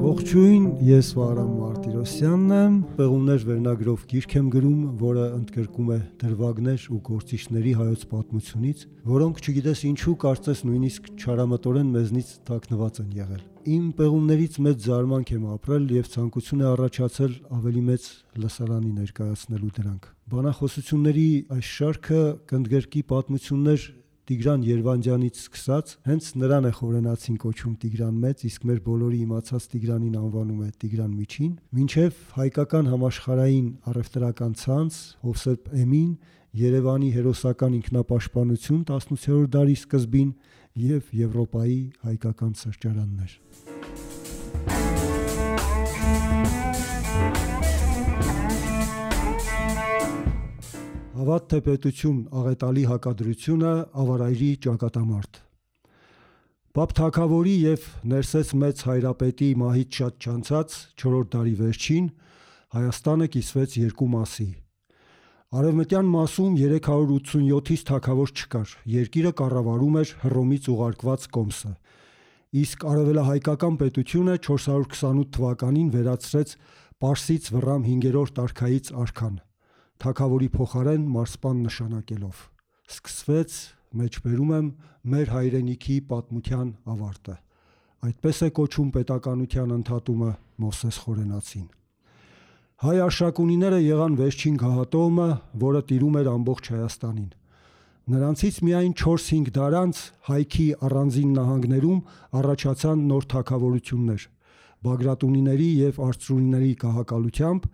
Ողջույն, ես Վահրամ Մարտիրոսյանն եմ, Պեղումներ վերնագրով գիրք եմ գրում, որը ընդգրկում է դրվագներ ու գործիչների հայոց պատմությունից, որոնք չգիտես ինչու կարծես նույնիսկ չարամտորեն մեզնից թաքնված են եղել։ Իմ պեղումներից մեծ զարմանք եմ ապրել եւ ցանկություն է առաջացել ավելի մեծ լսարանի ներկայացնելու դրանք։ Բանախոսությունների այս շարքը կընդգրկի պատմություններ Տիգրան Երվանդյանից սկսած, հենց նրան է խորենացին կոչում Տիգրան Մեծ, իսկ մեր բոլորի իմացած Տիգրանին անվանում է Տիգրան Միջին, մինչև հայկական համաշխարհային առևտրական ցանց, Հովսեփ Էմին, Երևանի հերոսական ինքնապաշտպանություն 18-րդ դարի սկզբին եւ Եվրոպայի հայկական սրճարաններ։ Հավատ թե պետություն աղետալի հակադրությունը ավարայրի ճակատամարտ։ Պապ Թագավորի եւ Ներսես Մեծ հայրապետի մահից շատ չանցած 4-րդ դարի վերջին Հայաստանը կիսվեց երկու մասի։ Արևմտյան մասում 387-ից թագավոր չկար, երկիրը կառավարում էր Հռոմից ուղարկված կոմսը, իսկ արևելահայկական պետությունը 428 թվականին վերացրեց Պարսից Վռամ 5-րդ արքայից արքան, թագավորի փոխարեն մարսպան նշանակելով։ Սկսվեց, մեջբերում եմ, մեր հայրենիքի պատմության ավարտը։ Այդպես է կոչում պետականության ընդհատումը Մովսես Խորենացին։ Հայ արշակունիները եղան վերջին գահատոմը, որը տիրում էր ամբողջ Հայաստանին։ Նրանցից միայն 4-5 դար անց հայքի առանձին նահանգներում առաջացան նոր թագավորություններ, բագրատունիների եւ արծրունիների գահակալությամբ,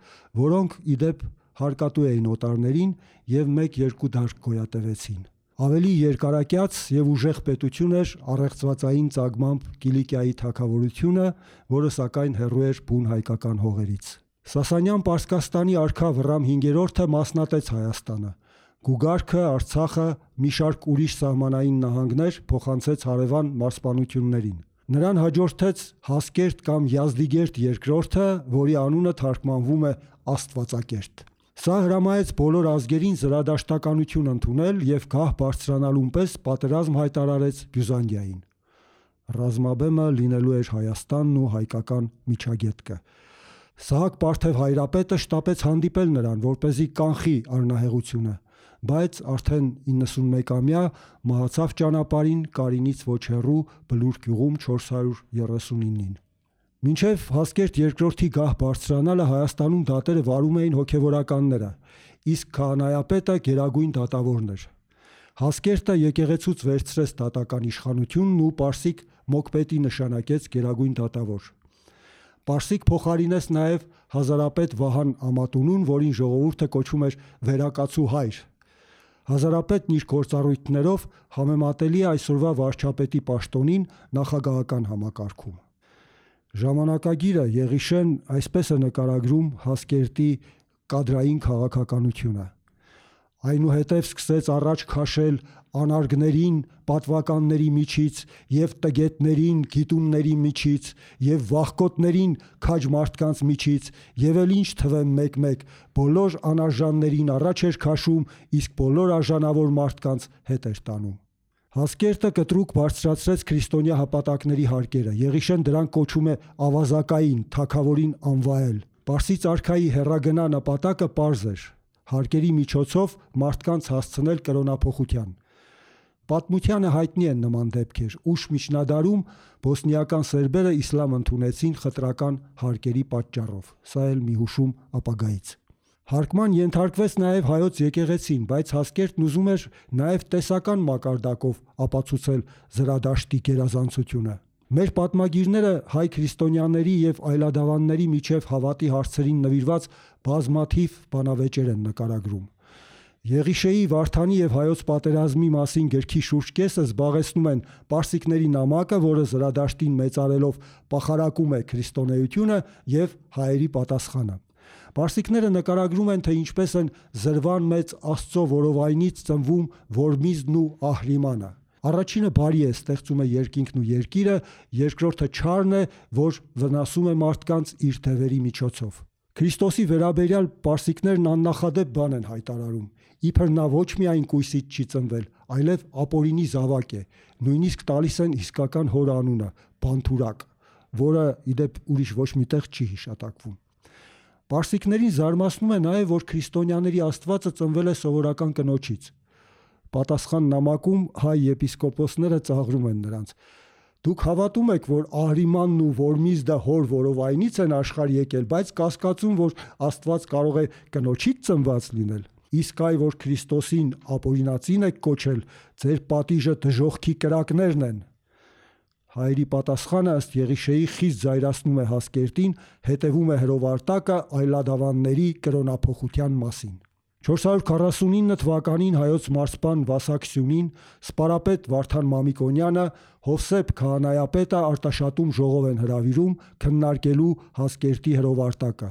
որոնք իդեպ հարկատու էին օտարներին եւ 1-2 դար գոյատևեցին։ Ավելի երկարակյաց եւ ուժեղ պետություն էր առեղծվածային ծագմամբ Կիլիկիայի թագավորությունը, որը սակայն հեռու էր բուն հայկական հողերից։ Սասանյան Պարսկաստանի արքա Վռամ 5-րդը մասնատեց Հայաստանը։ Գուգարքը, Արցախը, մի շարք ուրիշ սահմանային նահանգներ փոխանցեց հարևան մարզպանություններին։ Նրան հաջորդեց Հասկերտ կամ Յազդիգերտ II, որի անունը թարգմանվում է Աստվածակերտ։ Սա հրամայեց բոլոր ազգերին զրադաշտականություն ընդունել եւ գահ բարձրանալուն պես պատերազմ հայտարարեց Բյուզանդիային։ Ռազմաբեմը լինելու էր Հայաստանն ու հայկական միջագետքը։ Սահակ Պարթև հայրապետը շտապեց հանդիպել նրան, որպեսզի կանխի առնահեղությունը, բայց արդեն 91-ամյա մահացավ ճանապարհին Կարինից ոչ հեռու Բլուր գյուղում 439-ին։ Մինչև Հասկերտ II-ի գահ բարձրանալը Հայաստանում դատերը վարում էին հոգևորականները, իսկ քահանայապետը գերագույն դատավորն էր։ Հասկերտը եկեղեցուց վերցրեց դատական իշխանությունն ու Պարսիկ Մոկպետի նշանակեց գերագույն դատավոր։ Պարսիկ փոխարինեց նաև հազարապետ Վահան Ամատունուն, որին ժողովուրդը կոչում էր վերակացու հայր։ Հազարապետն իր գործառույթներով համեմատելի է այսօրվա վարչապետի պաշտոնին նախագահական համակարգում։ Ժամանակագիրը Եղիշեն այսպես է նկարագրում Հասկերտի կադրային քաղաքականությունը։ Այնուհետև սկսեց առաջ քաշել անարգներին պատվականների միջից եւ տգետներին գիտունների միջից եւ վախկոտներին քաջ մարդկանց միջից եւ էլ ինչ թվեմ մեկ-մեկ բոլոր անարժաններին առաջ էր քաշում, իսկ բոլոր արժանավոր մարդկանց հետ էր տանում։ Հասկերտը կտրուկ բարձրացրեց քրիստոնյա հպատակների հարկերը։ Եղիշեն դրանք կոչում է ավազակային, թագավորին անվայել։ Պարսից արքայի հեռագնա նպատակը պարզ էր՝ հարկերի միջոցով մարդկանց հասցնել կրոնափոխության։ Պատմությանը հայտնի են նման դեպքեր, ուշ միջնադարում բոսնիական սերբերը իսլամ ընդունեցին խտրական հարկերի պատճառով։ Սա էլ մի հուշում ապագայից։ Հարկման ենթարկվեց նաև հայոց եկեղեցին, բայց Հասկերտն ուզում էր նաև տեսական մակարդակով ապացուցել զրադաշտի գերազանցությունը։ Մեր պատմագիրները հայ քրիստոնյաների եւ այլադավանների միջև հավատի հարցերին նվիրված բազմաթիվ բանավեճեր են նկարագրում։ Եղիշեի, Վարդանի եւ հայոց պատերազմի մասին գրքի շուրջ կեսը զբաղեցնում են պարսիկների նամակը, որը զրադաշտին մեծարելով պախարակում է քրիստոնեությունը եւ հայերի պատասխանը։ Պարսիկները նկարագրում են, թե ինչպես են զրվան մեծ Աստծո որովայնից ծնվում Որմիզն ու Ահրիմանը։ Առաջինը բարի է, ստեղծում է երկինքն ու երկիրը, երկրորդը չարն է, որ վնասում է մարդկանց իր թևերի միջոցով։ Քրիստոսի վերաբերյալ պարսիկներն աննախադեպ բան են հայտարարում, իբր նա ոչ միայն կույսից չի ծնվել, այլև ապօրինի զավակ է, նույնիսկ տալիս են իսկական հոր անունը՝ Բանթուրակ։ որը իդեպ ուրիշ ոչ միտեղ չի հիշատակվում։ Պարսիկներին զարմացնում է նաև, որ քրիստոնյաների Աստվածը ծնվել է սովորական կնոջից։ Պատասխան նամակում հայ եպիսկոպոսները ծաղրում են նրանց. «Դուք հավատում եք, որ Ահրիմանն ու Որմիզդը հոր որովայնից են աշխարհ եկել, բայց կասկածում, որ Աստված կարող է կնոջից ծնված լինել։ Իսկ այ որ Քրիստոսին ապօրինածին եք կոչել, ձեր պատիժը դժոխքի կրակներն են»։ Հայերի պատասխանը ըստ Եղիշեի խիստ զայրացնում է Հասկերտին, հետևում է հրովարտակը այլադավանների կրոնափոխության մասին։ 449 թվականին հայոց մարզպան Վասակ Սյունին, սպարապետ Վարդան Մամիկոնյանը, Հովսեփ քահանայապետը Արտաշատում ժողով են հրավիրում քննարկելու Հասկերտի հրովարտակը։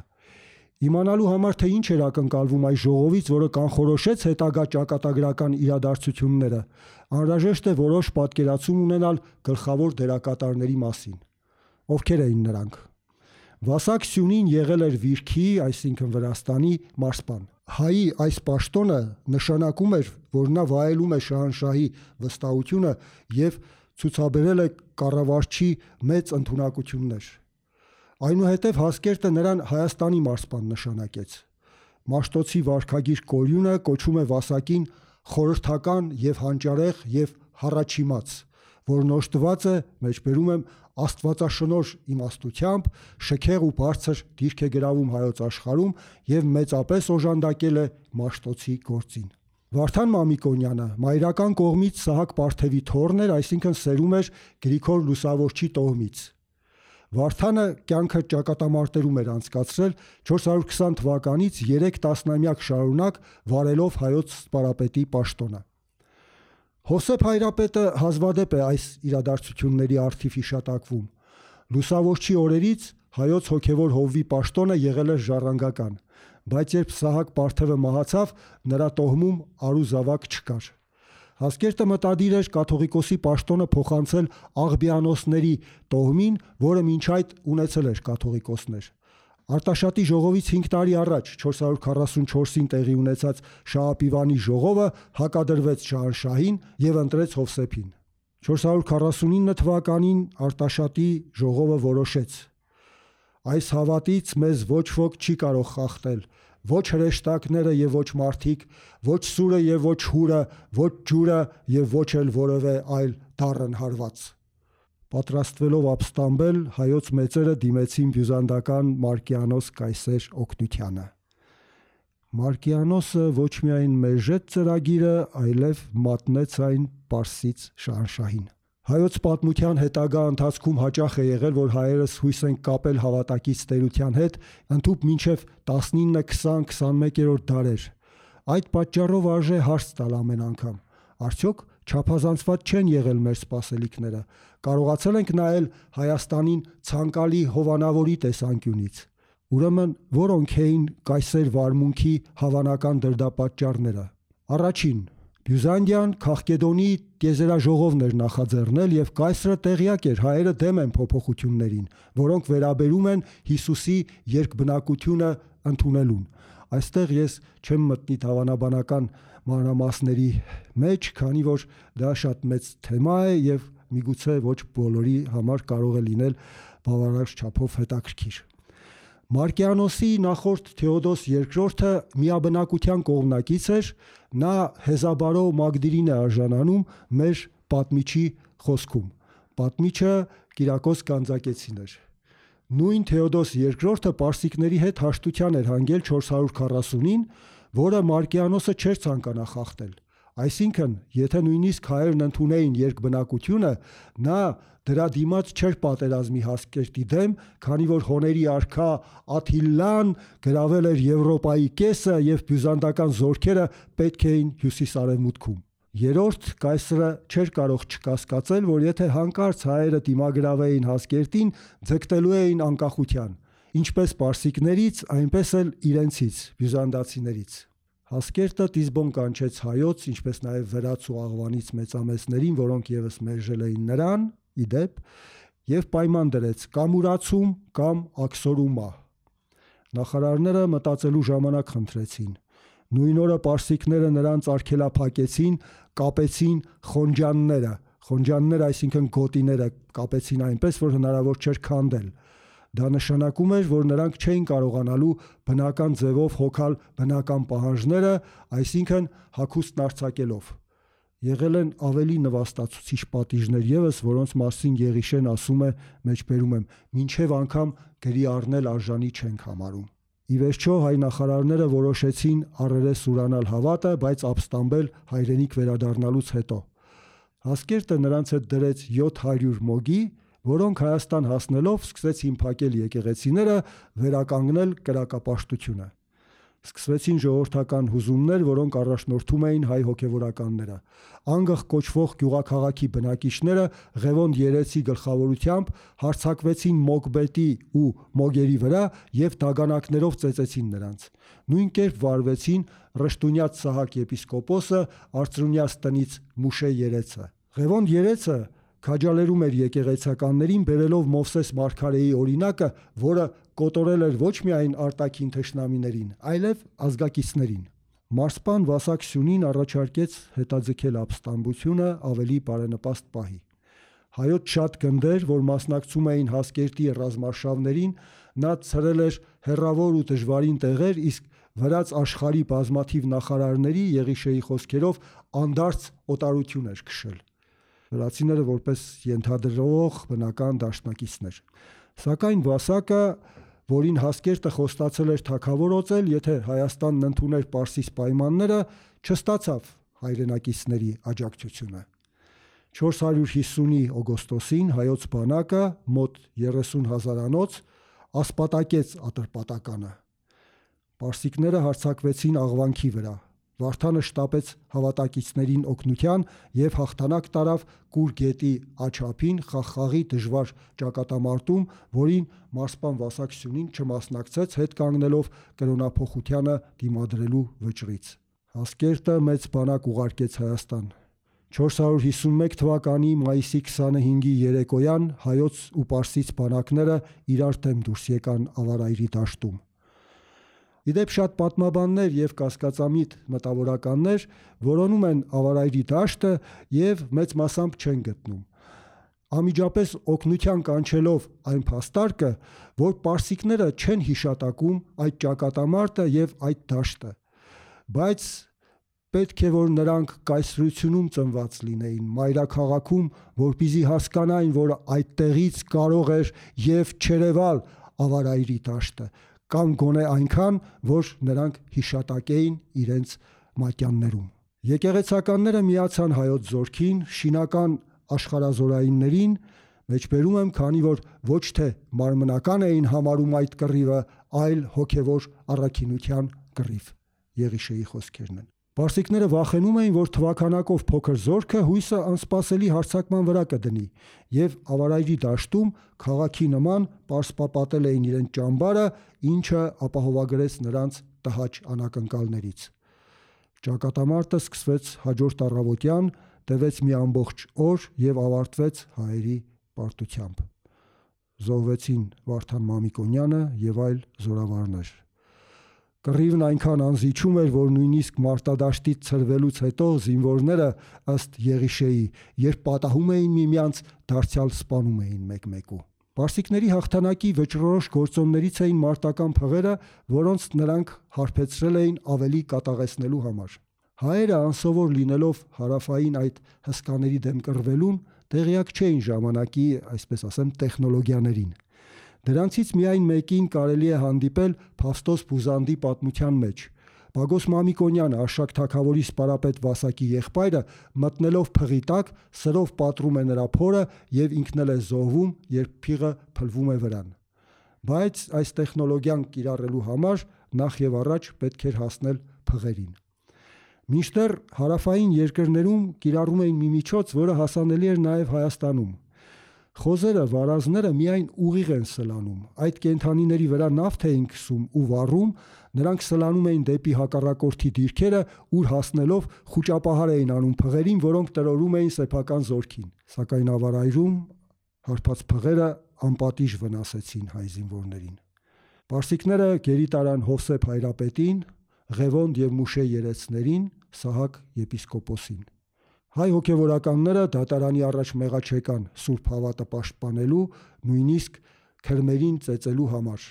Իմանալու համար, թե ինչ էր ակնկալվում այս ժողովից, որը կանխորոշեց հետագա ճակատագրական իրադարձությունները, անհրաժեշտ է որոշ պատկերացում ունենալ գլխավոր դերակատարների մասին։ Ովքեր էին նրանք։ Վասակ Սյունին եղել էր Վիրքի, այսինքն Վրաստանի մարզպան։ Հայի այս պաշտոնը նշանակում էր, որ նա վայելում է շահանշահի վստահությունը եւ ցուցաբերել է կառավարչի մեծ ընդունակություններ։ Այնուհետև Հասկերտը նրան Հայաստանի մարզպան նշանակեց։ Մաշտոցի վարքագիր Կորյունը կոչում է Վասակին խորհրդական եւ հանճարեղ եւ հառաչիմաց, որն օժտված է, մեջբերում եմ, աստվածաշնորհ իմաստությամբ, շքեղ ու բարձր դիրք է գրավում հայոց աշխարհում եւ մեծապես օժանդակել է Մաշտոցի գործին։ Վարդան Մամիկոնյանը մայրական կողմից Սահակ Պարթևի թոռն էր, այսինքն սերում էր Գրիգոր Լուսավորչի տոհմից։ Վարդանը կյանքը ճակատամարտերում էր անցկացրել 420 թվականից 3 տասնամյակ շարունակ վարելով հայոց սպարապետի պաշտոնը։ Հովսեփ Հայրապետը հազվադեպ է այս իրադարձությունների առթիվ հիշատակվում։ Լուսավորչի օրերից հայոց հոգևոր հովվի պաշտոնը եղել էր ժառանգական, բայց երբ Սահակ Պարթևը մահացավ, նրա տոհմում արու-զավակ չկար։ Հասկերտը մտադիր էր կաթողիկոսի պաշտոնը փոխանցել Աղբյանոսների տոհմին, որը մինչ այդ ունեցել էր կաթողիկոսներ։ Արտաշատի ժողովից 5 տարի առաջ 444-ին տեղի ունեցած Շահապիվանի ժողովը հակադրվեց շահանշահին եւ ընտրեց Հովսեփին։ 449 թվականին Արտաշատի ժողովը որոշեց. «Այս հավատից մեզ ոչ ոք չի կարող խախտել, ոչ հրեշտակները եւ ոչ մարդիկ, ոչ սուրը եւ ոչ հուրը, ոչ ջուրը եւ ոչ էլ որևէ այլ դառն հարված»։ Պատրաստվելով ապստամբել, հայոց մեծերը դիմեցին բյուզանդական Մարկիանոս Կայսեր օգնությանը։ Մարկիանոսը ոչ միայն մերժեց ծրագիրը, այլև մատնեց այն Պարսից շահանշահին։ Հայոց պատմության հետագա ընթացքում հաճախ է եղել, որ հայերս հույս են կապել հավատակից տերության հետ, ընդհուպ մինչև 19, 20, 21-րդ դարեր։ Այդ պատճառով արժե հարց տալ ամեն անգամ. արդյոք չափազանցված չեն եղել մեր սպասելիքները, կարողացել ենք նայել Հայաստանին ցանկալի հովանավորի տեսանկյունից։ Ուրեմն որոնք էին կայսեր վարմունքի հավանական դրդապատճառները։ Առաջին, Բյուզանդիան Քաղկեդոնի տիեզերաժողովն էր նախաձեռնել եւ կայսրը տեղյակ էր հայերը դեմ են փոփոխություններին, որոնք վերաբերում են Հիսուսի երկբնակությունը ընդունելուն։ Այստեղ ես չեմ մտնի հավանաբանական մանրամասների մեջ, քանի որ դա շատ մեծ թեմա է եւ միգուցե ոչ բոլորի համար կարող է լինել բավարար չափով հետաքրքիր։ Մարկիանոսի նախորդ Թեոդոս II-ը միաբնակության կողմնակից էր, նա Հեզաբարո Մագդիրին է արժանանում մեր պատմիչի խոսքում։ Պատմիչը Կիրակոս Գանձակեցին էր։ Նույն Թեոդոս II-ը պարսիկների հետ հաշտության էր հանգել 440-ին, որը Մարկիանոսը չէր ցանկանա խախտել։ Այսինքն, եթե նույնիսկ հայերն ընդունեին երկբնակությունը, նա դրա դիմաց չէր պատերազմի Հասկերտի դեմ, քանի որ հոների արքա Աթիլլան գրավել էր Եվրոպայի կեսը եւ բյուզանդական զորքերը պետք էին հյուսիսարևմուտքում։ Երրորդ, կայսրը չէր կարող չկասկածել, որ եթե հանկարծ հայերը դիմագրավեին Հասկերտին, ձգտելու էին անկախության, ինչպես պարսիկներից, այնպես էլ իրենցից, բյուզանդացիներից։ Հասկերտը Տիզբոն կանչեց հայոց, ինչպես նաև վրաց ու աղվանից մեծամեծներին, որոնք եւս մերժել էին նրան, իդեպ, եւ պայման դրեց կամ ուրացում, կամ աքսորումա։ Նախարարները մտածելու ժամանակ խնդրեցին։ Նույն օրը պարսիկները նրանց արգելափակեցին, կապեցին խոնջանները։ Խոնջանները, այսինքն գոտիները, կապեցին այնպես, որ հնարավոր չէր քանդել։ Դա նշանակում էր, որ նրանք չէին կարողանալու բնական ձևով հոգալ բնական պահանջները, այսինքն հագուստն արձակելով։ Եղել են ավելի նվաստացուցիչ պատիժներ ևս, որոնց մասին Եղիշեն ասում է, մեջբերում եմ, մինչև անգամ գրի առնել արժանի չենք համարում։ Ի վերջո հայ նախարարները որոշեցին առերես ուրանալ հավատը, բայց ապստամբել հայրենիք վերադառնալուց հետո։ Հասկերտը նրանց հետ դրեց 700 մոգի, որոնք Հայաստան հասնելով սկսեցին փակել եկեղեցիները, վերականգնել կրակապաշտությունը։ Սկսվեցին ժողովրդական հուզումներ, որոնք առաջնորդում էին հայ հոգևորականները։ Անգղ կոչվող գյուղաքաղաքի բնակիչները Ղևոնդ Երեցի գլխավորությամբ հարձակվեցին Մոկբետի ու Մոգերի վրա եւ դագանակներով ծեծեցին նրանց։ Նույն կերպ վարվեցին Ռշտունյաց Սահակ եպիսկոպոսը, Արծրունյաց տնից Մուշե Երեցը։ Ղևոնդ Երեցը քաջալերում էր եկեղեցականներին, բերելով Մովսես Մարգարեի օրինակը, որը կոտորել էր ոչ միայն արտաքին թշնամիներին, այլև ազգակիցներին։ Մարսպան Վասակ Սյունին առաջարկեց հետաձգել ապստամբությունը ավելի բարենպաստ պահի։ Հայոց շատ գնդեր, որ մասնակցում էին Հասկերտի ռազմարշավներին, նա ցրել էր հեռավոր ու դժվարին տեղեր, իսկ վրաց աշխարհի բազմաթիվ նախարարների Եղիշեի խոսքերով անդարձ օտարություն էր քշել։ Վրացիները որպես ենթադրող բնական դաշնակիցներ։ Սակայն Վասակը, որին Հասկերտը խոստացել էր թագավորոծել, եթե Հայաստանն ընդուներ Պարսից պայմանները, չստացավ հայրենակիցների աջակցությունը։ 450-ի օգոստոսին հայոց բանակը մոտ 30,000 անոց ասպատակեց Ատրպատականը։ Պարսիկները հարձակվեցին Աղվանքի վրա։ Վարդանը շտապեց հավատակիցներին օգնության եւ հաղթանակ տարավ Կուր գետի աչափին Խաղխաղի դժվար ճակատամարտում, որին մարսպան Վասակ Սյունին չմասնակցեց, հետ կանգնելով կրոնափոխությանը դիմադրելու վճռից։ Հասկերտը մեծ բանակ ուղարկեց Հայաստան։ 451 թվականի մայիսի 25-ի երեկոյան հայոց ու պարսից բանակները իրար դեմ դուրս եկան Ավարայրի դաշտում։ Իդեպ շատ պատմաբաններ եւ կասկածամիտ մտավորականներ որոնում են Ավարայրի դաշտը եւ մեծ մասամբ չեն գտնում։ Անմիջապես օգնության կանչելով այն փաստարկը, որ պարսիկները չեն հիշատակում այդ ճակատամարտը եւ այդ դաշտը, բայց պետք է որ նրանք կայսրությունում ծնված լինեին, մայրաքաղաքում, որպեսզի հասկանային, որ այդտեղից կարող էր եւ չերևալ Ավարայրի դաշտը, կամ գոնե այնքան, որ նրանք հիշատակեին իրենց մատյաններում։ Եկեղեցականները միացան հայոց զորքին, շինական աշխարհազորայիններին, մեջբերում եմ, քանի որ ոչ թե մարմնական էին համարում այդ կռիվը, այլ հոգևոր առաքինության կռիվ։ Եղիշեի խոսքերն են։ Պարսիկները վախենում էին, որ թվաքանակով փոքր զորքը հույսը անսպասելի հարձակման վրա կդնի, եւ Ավարայրի դաշտում քաղաքի նման պարսպապատել էին իրենց ճամբարը, ինչը ապահովագրեց նրանց տհաճ անակնկալներից։ Ճակատամարտը սկսվեց հաջորդ առավոտյան, տևեց մի ամբողջ օր եւ ավարտվեց հայերի պարտությամբ։ Զոհվեցին Վարդան Մամիկոնյանը եւ այլ զորավարներ։ Կռիվն այնքան անզիջում էր, որ նույնիսկ մարտադաշտից ցրվելուց հետո զինվորները ըստ Եղիշեի, երբ պատահում էին միմյանց, դարձյալ սպանում էին մեկ-մեկու։ Պարսիկների հաղթանակի վճռորոշ գործոններից էին մարտական փղերը, որոնց նրանք հարբեցրել էին ավելի կատաղեցնելու համար։ Հայերը անսովոր լինելով հարավային այդ հսկաների դեմ կռվելուն, տեղյակ չէին ժամանակի, այսպես ասեմ, տեխնոլոգիաներին։ Դրանցից միայն մեկին կարելի է հանդիպել Փավստոս Բուզանդի պատմության մեջ։ Պագոս Մամիկոնյանը, Արշակ թագավորի սպարապետ Վասակի եղբայրը, մտնելով փղի տակ, սրով պատռում է նրա փորը եւ ինքն էլ է զոհվում, երբ փիղը փլվում է վրան։ Բայց այս տեխնոլոգիան կիրառելու համար նախ եւ առաջ պետք էր հասնել փղերին։ Մինչդեռ հարավային երկրներում կիրառում էին մի միջոց, որը հասանելի էր նաեւ Հայաստանում։ Խոզերը, վարազները միայն ուղիղ են սլանում։ Այդ կենդանիների վրա նավթ էին քսում ու վառում, նրանք սլանում էին դեպի հակառակորդի դիրքերը, ուր հասնելով խուճապահար էին անում փղերին, որոնք տրորում էին սեփական զորքին։ Սակայն Ավարայրում հարբած փղերը անպատիժ վնասեցին հայ զինվորներին։ Պարսիկները գերի տարան Հովսեփ Հայրապետին, Ղևոնդ եւ Մուշե Երեցներին, Սահակ եպիսկոպոսին։ Հայ հոգևորականները դատարանի առաջ մեղաչեկան Սուրբ Հավատը պաշտպանելու, նույնիսկ քրմերին ծեծելու համար։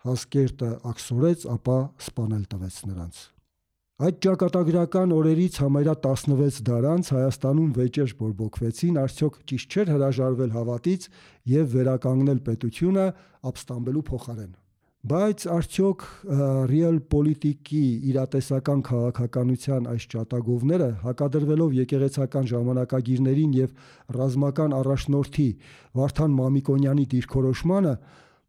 Հասկերտը աքսորեց, ապա սպանել տվեց նրանց։ Այդ ճակատագրական օրերից համարյա 16 դար անց Հայաստանում վեճեր բորբոքվեցին, արդյոք ճիշտ չէր հրաժարվել հավատից եւ վերականգնել պետությունը ապստամբելու փոխարեն։ Բայց արդյոք ռիալ պոլիտիկի իրատեսական քաղաքականության այս ճատագովները, հակադրվելով եկեղեցական ժամանակագիրներին եւ ռազմական առաջնորդի Վարդան Մամիկոնյանի դիրքորոշմանը,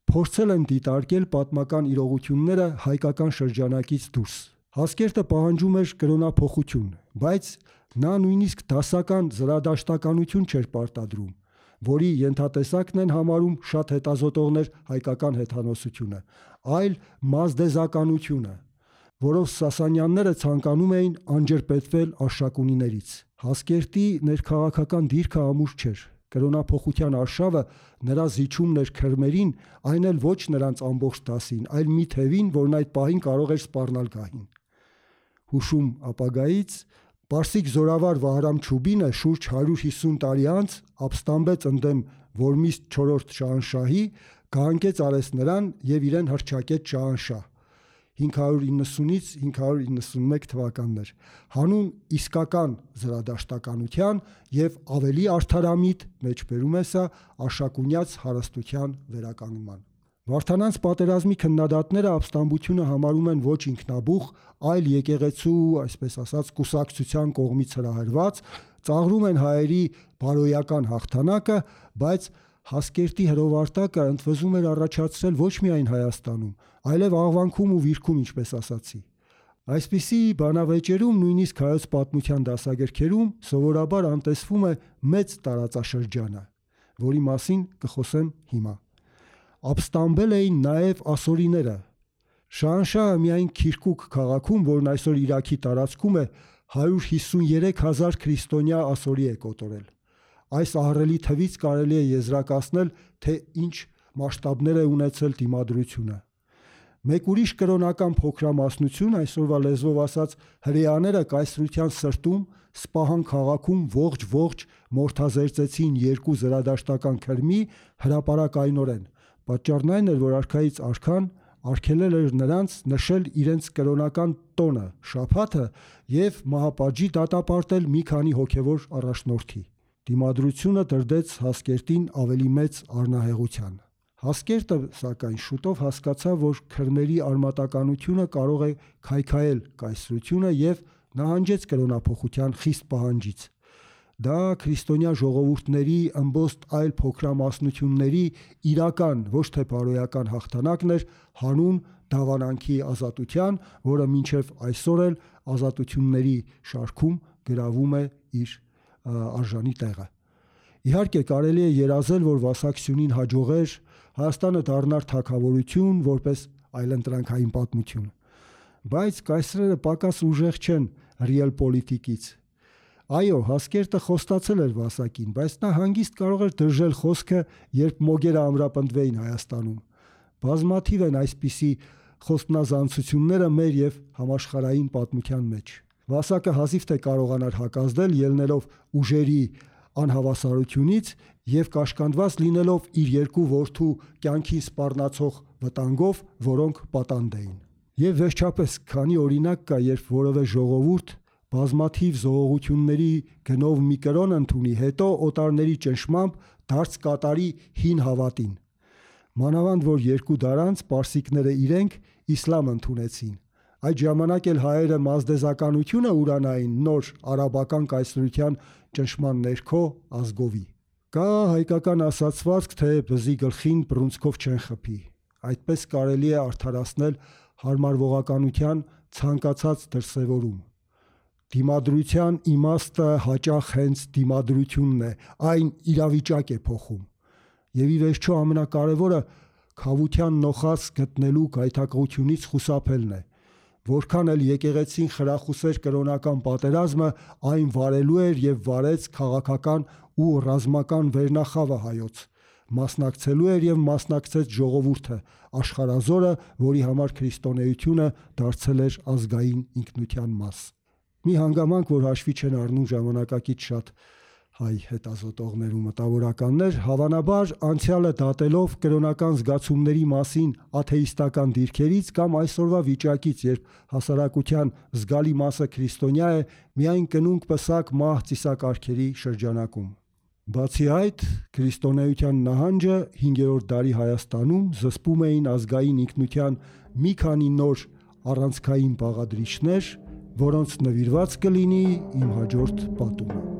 փորձել են դիտարկել պատմական իրողությունները հայկական շրջանակից դուրս։ Հասկերտը պահանջում էր կրոնափոխություն, բայց նա նույնիսկ դասական զրադաշտականություն չէր պարտադրում, որի ենթատեսակն են համարում շատ հետազոտողներ հայկական հեթանոսությունը, այլ մազդեզականությունը, որով Սասանյանները ցանկանում էին անջրպետվել Արշակունիներից։ Հասկերտի ներքաղաքական դիրքը ամուր չէր։ Կրոնափոխության արշավը նրա զիջումն էր քրմերին, այն էլ ոչ նրանց ամբողջ դասին, այլ մի թևին, որն այդ պահին կարող էր սպառնալ գահին։ Հուշում ապագայից պարսիկ զորավար Վահրամ Չուբինը շուրջ 150 տարի անց ապստամբեց ընդդեմ Որմիստ 4-րդ շահանշահի, գահանկեց արեց նրան եւ իրեն հռչակեց շահանշահ 590-ից 591 թվականներ, հանուն իսկական զրադաշտականության եւ ավելի արդարամիտ մեջբերում է սա Արշակունյաց հարստության վերականգնման։ Վարդանանց պատերազմի քննադատները ապստամբությունը համարում են ոչ ինքնաբուխ, այլ եկեղեցու, այսպես ասած, կուսակցության կողմից հրահրված, ծաղրում են հայերի բարոյական հաղթանակը, բայց Հասկերտի հրովարտակը ընդվզում էր առաջացրել ոչ միայն Հայաստանում, այլև Աղվանքում ու Վիրքում, ինչպես ասացի։ Այսպիսի բանավեճերում, նույնիսկ հայոց պատմության դասագրքերում սովորաբար անտեսվում է մեծ տարածաշրջանը, որի մասին կխոսեմ հիմա։ Ապստամբել էին նաև ասորիները։ Շահանշահը միայն Քիրկուկ քաղաքում, որն այսօր Իրաքի տարածքում է, 153,000 քրիստոնյա ասորի է կոտորել։ Այս ահռելի թվից կարելի է եզրակացնել, թե ինչ մասշտաբներ է ունեցել դիմադրությունը։ Մեկ ուրիշ կրոնական փոքրամասնություն, այսօրվա լեզվով ասած, հրեաները կայսրության սրտում Սպահան քաղաքում ողջ մորթազերծեցին երկու զրադաշտական քրմի հրապարակայնորեն։ Պատճառն այն էր, որ արքայից արքան արգելել էր նրանց նշել իրենց կրոնական տոնը, շաբաթը եւ մահապատժի դատապարտել մի քանի հոգեվոր առաջնորդի։ Դիմադրությունը դրդեց Հասկերտին ավելի մեծ առնահեղության։ Հասկերտը, սակայն, շուտով հասկացավ, որ քրմերի արմատականությունը կարող է քայքայել կայսրությունը եւ նահանջեց կրոնափոխության խիստ պահանջից։ Դա քրիստոնյա ժողովուրդների ըմբոստ այլ փոքրամասնությունների իրական, ոչ թե բարոյական հաղթանակն էր հանուն դավանանքի ազատության, որը մինչև այսօր էլ ազատությունների շարքում գրավում է իր արժանի տեղը։ Իհարկե կարելի է երազել, որ Վասակ Սյունին հաջողեր, Հայաստանը դառնար թագավորություն որպես այլընտրանքային պատմություն։ Բայց կայսրերը պակաս ուժեղ չեն ռիալ պոլիտիկից։ Այո, Հասկերտը խոստացել էր Վասակին, բայց նա հանգիստ կարող էր դրժել խոսքը, երբ մոգերը ամրապնդվեին Հայաստանում։ Բազմաթիվ են այսպիսի խոստնազանցությունները մեր եւ համաշխարհային պատմության մեջ։ Վասակը հազիվ թե կարողանար հակազդել, ելնելով ուժերի անհավասարությունից եւ կաշկանդված լինելով իր երկու որդու կյանքին սպառնացող վտանգով, որոնք պատանդ էին։ Եվ վերջապես, քանի օրինակ կա, երբ որևէ ժողովուրդ բազմաթիվ զողողությունների գնով մի կրոն ընդունի, հետո օտարների ճնշմամբ դարձ կատարի հին հավատին։ Մանավանդ որ 2 դար անց պարսիկները իրենք իսլամ ընդունեցին։ Այդ ժամանակ էլ հայերը մազդեզականությունը ուրանային նոր արաբական կայսրության ճնշման ներքո ազգովի։ Կա հայկական ասացվածք, թե բզի գլխին բռունցքով չեն խփի։ Այդպես կարելի է արդարացնել հարմարվողականության ցանկացած դրսևորում։ Դիմադրության իմաստը հաճախ հենց դիմադրությունն է, այն իրավիճակ է փոխում։ Եվ ի վերջո ամենակարևորը քավության նոխած գտնելու գայթակղությունից խուսափելն է։ Որքան էլ եկեղեցին խրախուսեր կրոնական պատերազմը, այն վարելու էր եւ վարեց քաղաքական ու ռազմական վերնախավը հայոց։ Մասնակցելու էր եւ մասնակցեց ժողովուրդը, աշխարհազորը, որի համար քրիստոնեությունը դարձել էր ազգային ինքնության մաս։ մի հանգամանք, որ հաշվի չեն առնում ժամանակակից շատ հայ հետազոտողներ ու մտավորականներ, հավանաբար անցյալը դատելով կրոնական զգացումների մասին աթեիստական դիրքերից կամ այսօրվա վիճակից, երբ հասարակության զգալի մասը քրիստոնյա է, միայն կնունկ պսակ մահ ծիսակարգերի շրջանակում։ Բացի այդ, քրիստոնեության նահանջը 5-րդ դարի Հայաստանում զսպում էին ազգային ինքնության մի քանի նոր առանցքային բաղադրիչներ, որոնց նվիրված կլինի իմ հաջորդ պատումը։